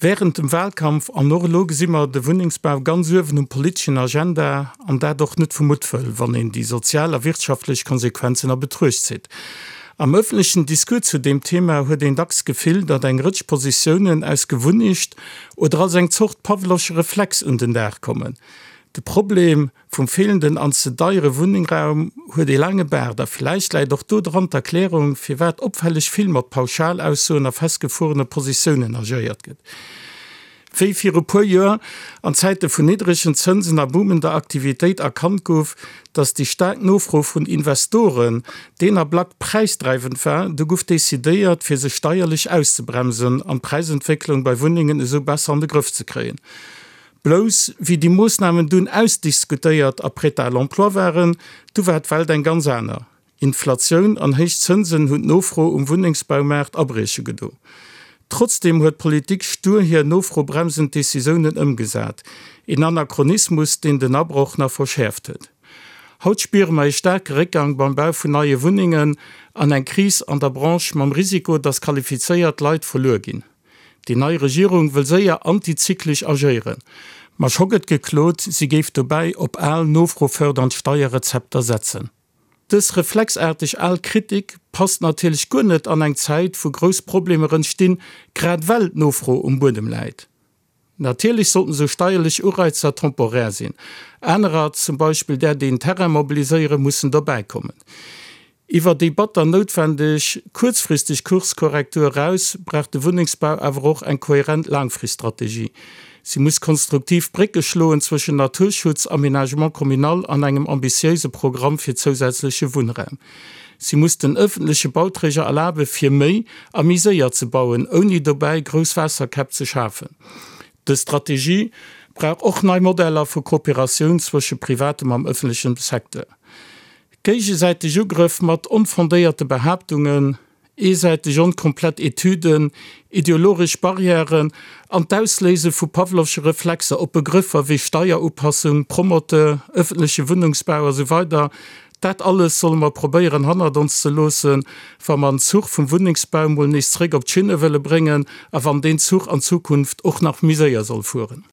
Wärend dem Wahlkampf an och elo gesi mer de Wunnengsbau ganz uewen um politeschen Agenda, an dat och net vu Muttwëll, wann een déi sozial a wirtschaftlech Konsequenzen a Betruecht zitt. Am ëffentlechen Discours zu deem Thema huet een dacks d'Gefill, datt eng Rëtsch Positiounen aus Gewunnecht oder als eng Zort pawlowsche Reflex un den Dag kommen. De Problem Vum feelenden an ze deiere Wunningraum huet ee laange Baart a villäicht läit och do dran d'Erklärung, firwat opfälleg vill mat Pauschalaussoen a festgefuerene Positiounen agéiert gëtt. Wéi viru puer Joer an Zäite vun niddregen Zënsen a boomender Aktivitéit erkannt gouf, datt déi staark Nofro vun Investoren deen Ablack präisdreiwend war, du guff decidéiert, fir se steierlech auszebremsen an d'Präisentwécklung bei Wunnengen esou besser an de Grëff ze kréien. Blouss wéi déi Moossnamen dunn ausdiskutéiert a prêt à l'emploi waren, du war d'Welt eng ganz aner. Inflatioun an héich Zënsen hunn d'Nofro um Wunnengsbaumaart abrieche gedo. Trotzdeem huet d'Politik stur hir nofrobremsend Decisiounen ëmgesat, een Anachronismus, deen den Abroch nach verschäerft huet. Haut spiere mer ee staarke Réckgang beim Bau vun neie Wunnengen an eng Kris an der Branche mam Risiko, datt qualifizéiert Leit verluer ginn. Déi nei Regierung wëll séier antizyklesch agéieren, ma scho gëtt geklot, si géif dobäi op al nofrofërdernd Steierrezepter setzen. Dës reflexaarteg al Kritik passt natierlech guer net an eng Zäit, wou grouss Problemer entstinn, grad well d'Nofro um Buedem läit. Natierlech sollten esou steierlech Ureizer temporär sinn. Anerer, zum Beispill där déi en Terrain mobiliséieren, mussen dobäikommen. Iwwer déi batter noutwendeg kuerzfristeg Kurskorrektur eraus brauch de Wunnengsbau awer och eng kohärent Laangfriststrategie. Si muss konstruktiv Brécke schloen zwëschen Naturschutz, Aménagement communal an engem ambitiéise Programm fir zousätzleche Wunnraum. Si muss den ëffentleche Bauträger erlabe fir méi a méi séier ze bauen, ouni dobäi grouss Waasserkäpp ze schafen. Dës Strategie brauch och nei Modeller vu Kooperatioun zwësche privatem am ëffentlechem Secteur. Géigesäiteg Ugrëff mat onfondéierte Behaaptungen, eesäiteg onkomplett Etüden, ideologesch Barrièren an d'Ausléise vu pawlowsche Reflexer op Begrëffer wéi Steierupassung, Promoteur, ëffentleche Wunnungsbau a sou weider, dat alles solle mer probéieren hannert ons ze loossen, wa mer en Zuch vum Wunnengsbau mol nees zréck op d'Schinne wëlle bréngen a wann deen Zuch an Zukunft och nach méi séier soll fueren.